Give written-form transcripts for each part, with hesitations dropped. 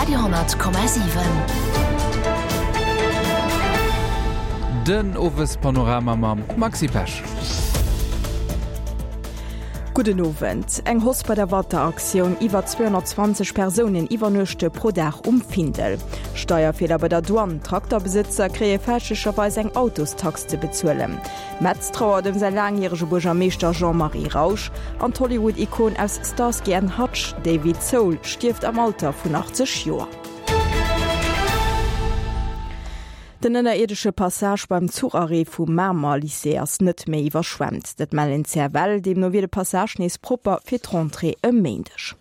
Radio,7. Den Owespanorama mam Maxi Pesch. Gudden Owend. Eng Hausse bei der Wateraktioun, Iwwer 220 Persounen iwwernuechte pro Dag um Findel. Steierfeeler bei der Douane, Trakterbesëtzer kréie fälschlecherweis eng Autostax ze bezuelen. Metz trauert ëm säi laangjärege Buergermeeschter Jean-Marie Rausch an d'Hollywood-Ikon aus Starsky and Hutch, David Soul, stierft am Alter vun 80 Joer. Den ënnerierdesche Passage beim Zucharrêt vum Mamer Lycée ass net méi iwwerschwemmt. Dat mellen d'CFL. Deemno wier de Passage nees propper fir d'Rentrée e Méindeg.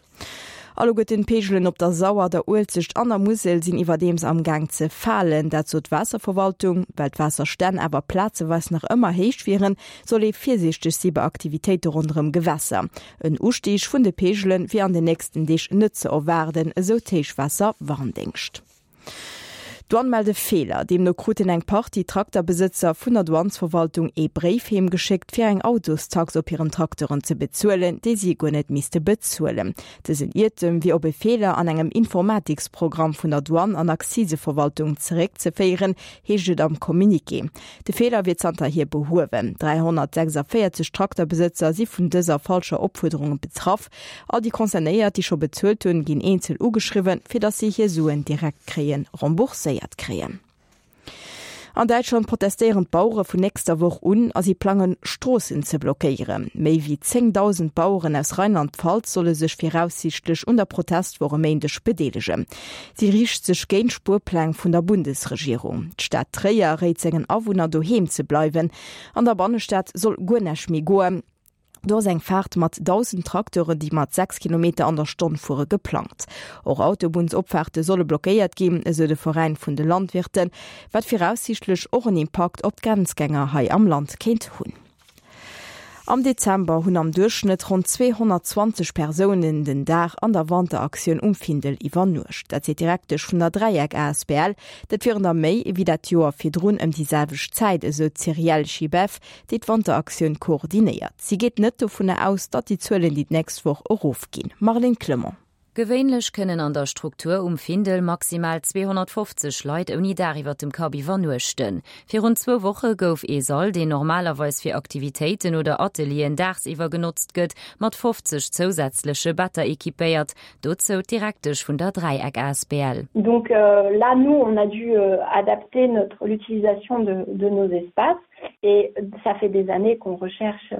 Alleguerten d'Peegelen op der Sauer, der Uelzecht an der Musel sinn iwwerdeems am Gaang ze falen. Dat sot d'Waasserverwaltung. Well d'Waasserstänn awer plazeweis nach ëmmer héich wieren, soll ee virsiichteg si bei Aktivitéite ronderëm Gewässer. En Ustieg vun de Peegele wier an den nächsten Deeg net ze erwaarden, esou d'Héichwaasserwarndéngscht. D'Douane mellt e Feeler. Deemno kruten eng Partie Trakterbesëtzer vun der Douanesverwaltung ee Bréif heem geschéckt, fir eng Autostax op hiren Trakteren ze bezuelen, déi si guer net misste bezuelen. Dësen Iertem wier op e Feeler an engem Informatiksprogramm vun der Douane an Akziseverwaltung zeréckzeféieren, heescht et am Communiqué. De Feeler wier zanterhier behuewen. 346 Trakterbesëtzer si vun dëser falscher Opfuerderung betraff. All déi Concernéiert, déi scho bezuelt hunn, ginn eenzel ugeschriwwen, fir datt si hir Suen direkt kréien rembourséiert kréien. An Däitschland protestéieren d'Bauere vun nächster Woch un a si plangen, Stroossen ze blockéieren. Méi wéi 10.000 Baueren aus Rheinland-Pfalz solle sech viraussiichtlech un der Protestwoch e Méindeg bedeelegen. Si riicht sech géint d'Spuerpläng vun der Bundesregierung. D'Stad Tréier réit sengen Awunner, doheem ze bleiwen. An der Bannestad soll guer näischt méi goen. Do ass eng Faart mat 1.000 Trakteuren, déi mat 6 Kilometer an der Stonn fuere, geplangt. Och Autobunnsopfaarte solle blockéiert ginn, esou de Veräin vun de Landwirten, wat viraussiichtlech och en Impakt op d'Grenzgänger hei am Land kéint hunn. Am Dezember hunn am Duerchschnëtt ronn 220 Persounen den Dag an der Wanteraktioun um Findel iwwernuecht. Dat seet d'Direktesch vun der Dräieck asbl. Dat wieren der méi ewéi dat Joer virdrun ëm déi selwecht Zäit, esou d'Cyrielle Schibeff, déi d'Wanteraktioun koordinéiert. Si geet net dovunner aus, datt déi Zuelen déi d'nächst Woch erofginn. Marlene Clement. Gewéinlech kënnen an der Struktur um Findel maximal 250 Leit ouni Daach iwwer dem Kapp iwwernuechten. Virun zwou Woche gouf ee Sall, deen normalerweis fir Aktivitéiten oder Atelieren daagsiwwer genotzt gëtt, mat 50 zousätzleche Better equipéiert. Dozou d'Direktesch vun der Dräieck asbl. Donc là, nous, on a dû adapter notre l'utilisation de de nos espaces. Et ça fait des années qu'on recherche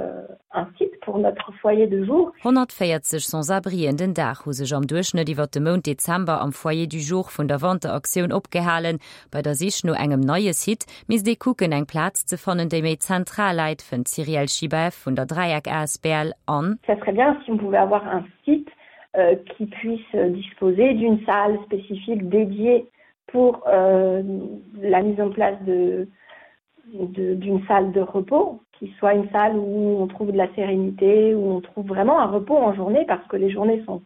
un site pour notre foyer de jour. 140 Sans-abrien den Dag hu sech am Duerchschnëtt iwwer de Mount Dezember am Foyer du jour vun der Wanteraktioun opgehalen. Bei der Sich no engem neie Site misst ee kucken, eng Plaz ze fannen, déi méi zentral läit, fënnt d'Cyrielle Schibaeff vun der Dräieck asbl. An. Ça serait bien si on pouvait avoir un site qui puisse disposer d'une salle spécifique dédiée pour la mise en place de d'une salle de repos qui soit une salle où on trouve de la sérénité, où on trouve vraiment un repos en journée parce que les journées sont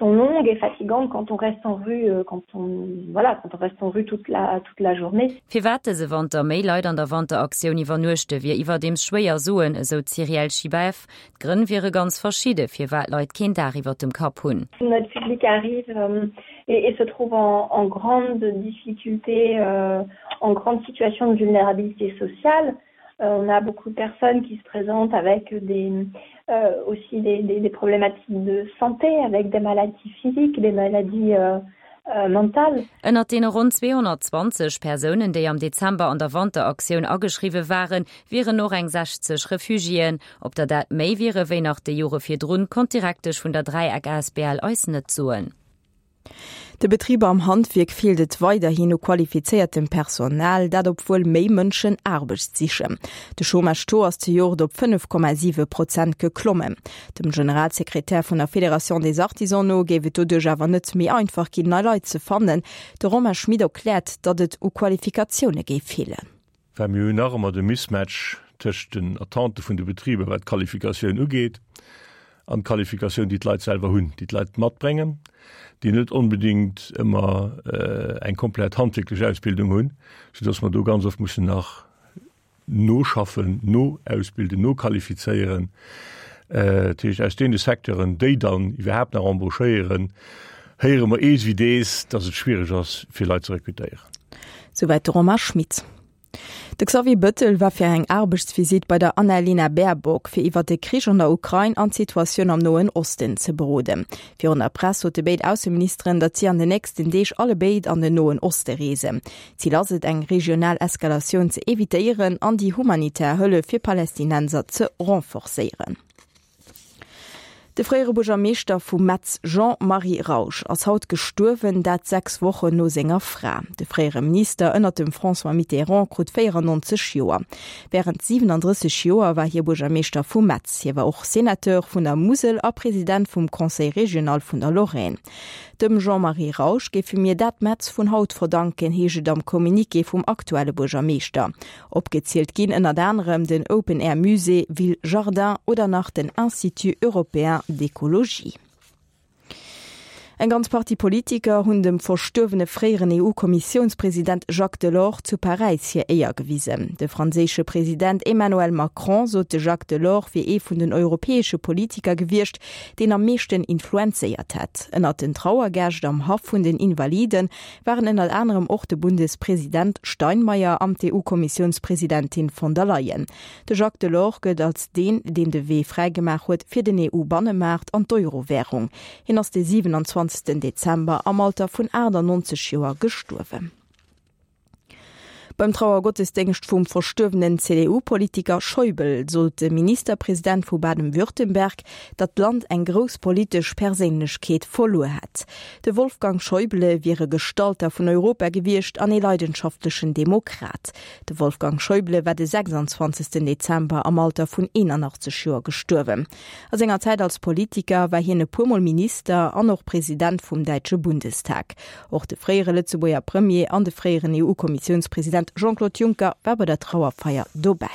sont longues et fatigantes quand on reste en rue euh, quand on voilà quand on reste en rue toute la toute la journée. Firwat dëse Wanter méi Leit an der Wanteraktioun iwwernuechte wier iwwerdeems schwéier soen, esou d'Cyrielle Schibaeff. D'Grënn wiere ganz verschidde firwat Leit keen Daach iwwer dem Kapp hunn. Notre public arrive euh, et, et se trouve en, en grande difficulté, euh, en grande situation de vulnérabilité sociale. Euh, on a beaucoup de personnes qui se présentent avec des, euh, aussi des, des, des problématiques de santé, avec des maladies physiques, des maladies euh, euh, mentales. Ënnert deene ronn 220 Persounen, déi am Dezember an der Wanteraktioun ageschriwwe waren, wieren och eng 60 Refugiéen. Ob der dat méi wiere wéi nach déi Jore virdrun, konnt d'Direktesch vun der Dräieck asbl eis net soen. De Betriber am Handwierk feelt et weiderhin u qualifizéiertem Personal, dat obwuel méi Mënschen Aarbecht sichen. De Chômage-Taux ass zejoert op 5,7 Prozent geklommen. Dem Generalsekretär vun der Fédération des Artisans no géif et doduerch awer net méi einfach ginn, nei Leit ze fannen. De Romain Schmit erkläert, datt et u Qualifikatioune géif feelen. Well mir hunn nach ëmmer de Mismatch tëscht den Attente vun de Betriber, wat d'Qualifikatioun ugeet, an d'Qualifikatioun, déi d'Leit selwer hunn, déi d'Leit matbréngen, déi net onbedéngt ëmmer eng komplett handwierklech Ausbildung hunn, soudass mer do ganz oft mussen nach noschaffen, noausbilden, noqualifizéieren. Dat heescht, aus deene Secteuren, déi dann iwwerhaapt nach embauchéieren, Héiere mer ees wéi dees, dass et schwiereg ass, fir Leit ze rekrutéieren. Souwäit de Romain Schmit. De Xavier Bëttel war fir eng Aarbechtsvisitt bei der Annalena Baerbock, fir iwwer de Krich an der Ukrain an d'Situatioun am Noen Osten ze beroden. Virun der Press sote béid Ausseministeren, datt si an den nächsten Deeg allebéid an den Noen Oste reesen. Zil ass et, eng regional Eskalatioun ze evitéieren an déi humanitär Hëllef fir Palästinenser ze renforcéieren. De fréiere Buergermeeschter vu Metz Jean-Marie Rausch ass haut gestuerwen, dat 6 Wochen no senger Fra. De fréiere Minister ënnert dem François Mitterrand krut 94 Joer. Wärend 37 Joer war hie Buergermeeschter vu Metz. Hie war och Senateur vun der Musel a President vum Conseil régional vun der Lorraine. Dem Jean-Marie Rausch géife mir dat Metz vun haut verdanken, heescht et am Communiqué vum aktuelle Buergermeeschter. Opgezielt ginn ënnert anerem den Open Air Musée Ville Jardin oder nach den Institut Européen d'Ecologie. Eng ganz Partie Politiker hunn dem verstuerwene fréieren EU-Kommissiounspresident Jacques Delors zu Paräis hir Éier gewisen. De franséische President Emmanuel Macron sot, de Jacques Delors wier ee vun den europäesche Politiker gewiescht, deen am meeschten influenzéiert hätt. Ënnert den Trauergäscht am Haff vun den Invaliden waren ënnert anerem och de Bundespresident Steinmeier an d'EU-Kommissiounspresidentin von der Leyen. De Jacques Delors gëllt als deen, deen de Wee fräigemaach huet fir den EU-Bannemaart an d'Euro-Wärung. Hien ass de 27 Dezember am Alter vun 98 Joer gestuerwen. Beim Trauergottesdéngscht vum verstuerwenen CDU-Politiker Schäuble sot de Ministerpresident vu Baden-Württemberg, datt d'Land eng grouss politesch Perséinlechkeet verluer hätt. De Wolfgang Schäuble wier e Gestalter vun Europa gewiescht an ee leidenschaftlechen Demokrat. De Wolfgang Schäuble war de 26 Dezember am Alter vun 81 Joer gestuerwen. A senger Zäit als Politiker war hien e puermol Minister an och President vum däitsche Bundestag. Och de fréiere Lëtzebuerger Premier an de fréieren EU-Kommissiounspresident Jean-Claude Juncker war bei der Trauerfeier dobäi.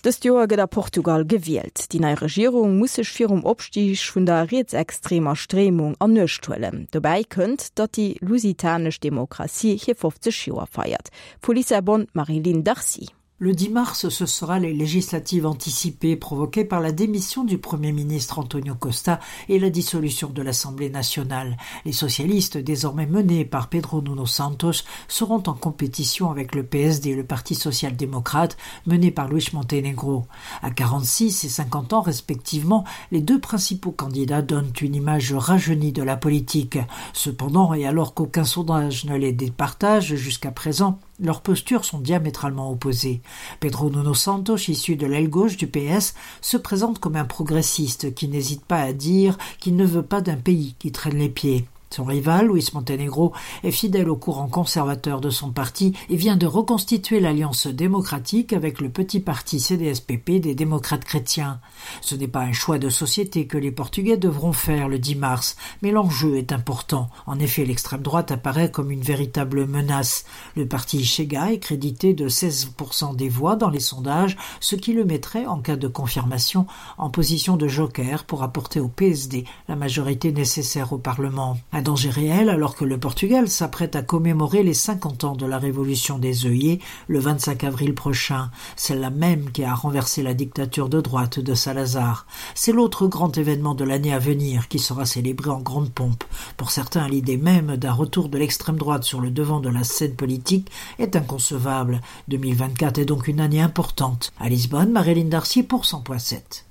Dëst Joer gëtt a Portugal gewielt. Déi nei Regierung muss sech virum Opstig vun der rietsextremer Stréimung an Uecht huelen. Dobäi kënnt, datt déi lusitanesch Demokratie hir 50 Joer feiert. Vu Lissabon d'Marie-Line Darcy. Le 10 mars, ce sera les législatives anticipées provoquées par la démission du Premier ministre Antonio Costa et la dissolution de l'Assemblée nationale. Les socialistes, désormais menés par Pedro Nuno Santos, seront en compétition avec le PSD et le Parti social-démocrate mené par Luis Montenegro. À 46 et 50 ans respectivement, les deux principaux candidats donnent une image rajeunie de la politique. Cependant, et alors qu'aucun sondage ne les départage jusqu'à présent, Leurs postures sont diamétralement opposées. Pedro Nuno Santos, issu de l'aile gauche du PS, se présente comme un progressiste qui n'hésite pas à dire qu'il ne veut pas d'un pays qui traîne les pieds. Son rival, Luis Montenegro, est fidèle au courant conservateur de son parti et vient de reconstituer l'alliance démocratique avec le petit parti CDSPP des démocrates chrétiens. Ce n'est pas un choix de société que les Portugais devront faire le 10 mars, mais l'enjeu est important. En effet, l'extrême droite apparaît comme une véritable menace. Le parti Chega est crédité de 16% des voix dans les sondages, ce qui le mettrait, en cas de confirmation, en position de joker pour apporter au PSD la majorité nécessaire au Parlement. Un danger réel alors que le Portugal s'apprête à commémorer les 50 ans de la révolution des œillets le 25 avril prochain, celle-là même qui a renversé la dictature de droite de Salazar. C'est l'autre grand événement de l'année à venir qui sera célébré en grande pompe. Pour certains, l'idée même d'un retour de l'extrême droite sur le devant de la scène politique est inconcevable. 2024 est donc une année importante. À Lisbonne, Marilyn Darcy pour 100.7.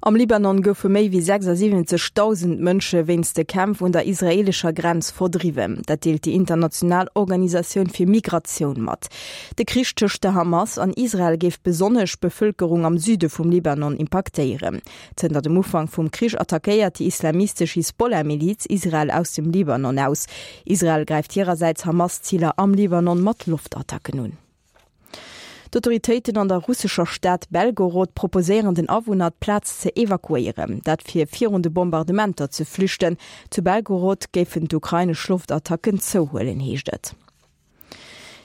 Am Libanon goufe méi wéi 76.000 Mënsche wéinst de Kämpf un der israeelescher Grenz verdriwwen. Dat deelt déi international Organisatioun fir Migratioun mat. De Krich tëscht der Hamas an Israel géif besonnesch d'Bevëlkerung am Süde vum Libanon impaktéieren. Zënter dem Ufank vum Krich attackéiert déi islamistesch Hisbollah-Miliz Israel aus dem Libanon aus. Israel gräift hirersäits Hamas-Ziler am Libanon mat Loftattacken un. D'Autoritéiten an der russescher Stad Belgorod proposéieren den Awunner, d'Plaz ze evakuéieren. Dat fir virun de Bombardementer ze flüchten. Zu Belgorod géifen d'ukrainesch Loftattacken zouhuelen, heescht et.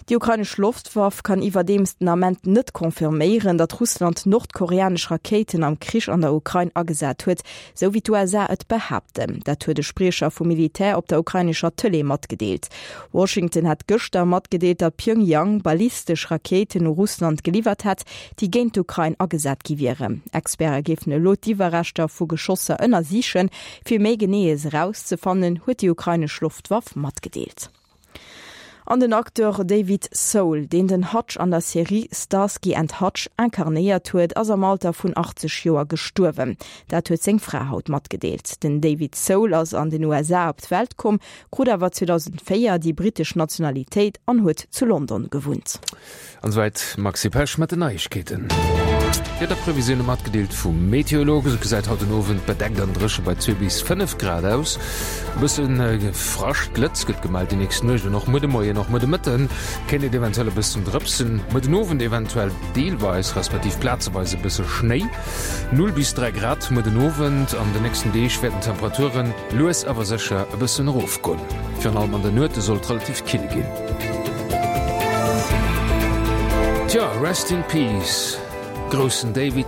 Déi ukrainesch Loftwaff kann iwwerdeems den Ament net confirméieren, datt Russland nordkoreanesch Rakéiten am Krich an der Ukrain agesat huet, sou wéi d'USA et behaapten. Dat huet e Spriecher vum Militär op der ukrainescher Tëlee matgedeelt. Washington hat gëschter matgedeelt, datt Pjöngjang ballistesch Rakéiten u Russland geliwwert hätt, déi géint d'Ukrain agesat gi wieren. Experte géifen elo d'Iwwerreschter vu Geschosser ënnersichen, fir méi Geneeës erauszefannen, huet déi ukrainesch Loftwaff matgedeelt. An den Acteur David Soul, deen den Hutch an der Serie Starsky and Hutch incarnéiert huet, ass am Alter vun 80 Joer gestuerwen. Dat huet seng Fra haut matgedeelt. Den David Soul ass an den USA op d'Welt komm, krut awer 2004 déi brittesch Nationalitéit an huet zu London gewunnt. An esouwäit d'Maxi Pesch mat den Neiegkeeten. D'Wiederprevisioune matgedeelt vum Meteolog. Esou gesäit haut den Owend bedeckt an dréche bei 2 bis 5 Grad aus. E bësse Frascht, Glëtz gëtt gemellt déi nächst Nuecht an och muer de Moien. Och muer de Mëtte kéint et eventuell e bëssen drëpsen. Muer den Owend eventuell deelweis respektiv plazeweis e bësse Schnéi. 0 bis 3 Grad muer den Owend. An den nächsten Deeg wäerten d'Temperaturen lues awer sécher e bëssen erofgoen. Virun allem an der Nuete soll et relativ kill ginn. Tja, Rest in Peace, groussen David.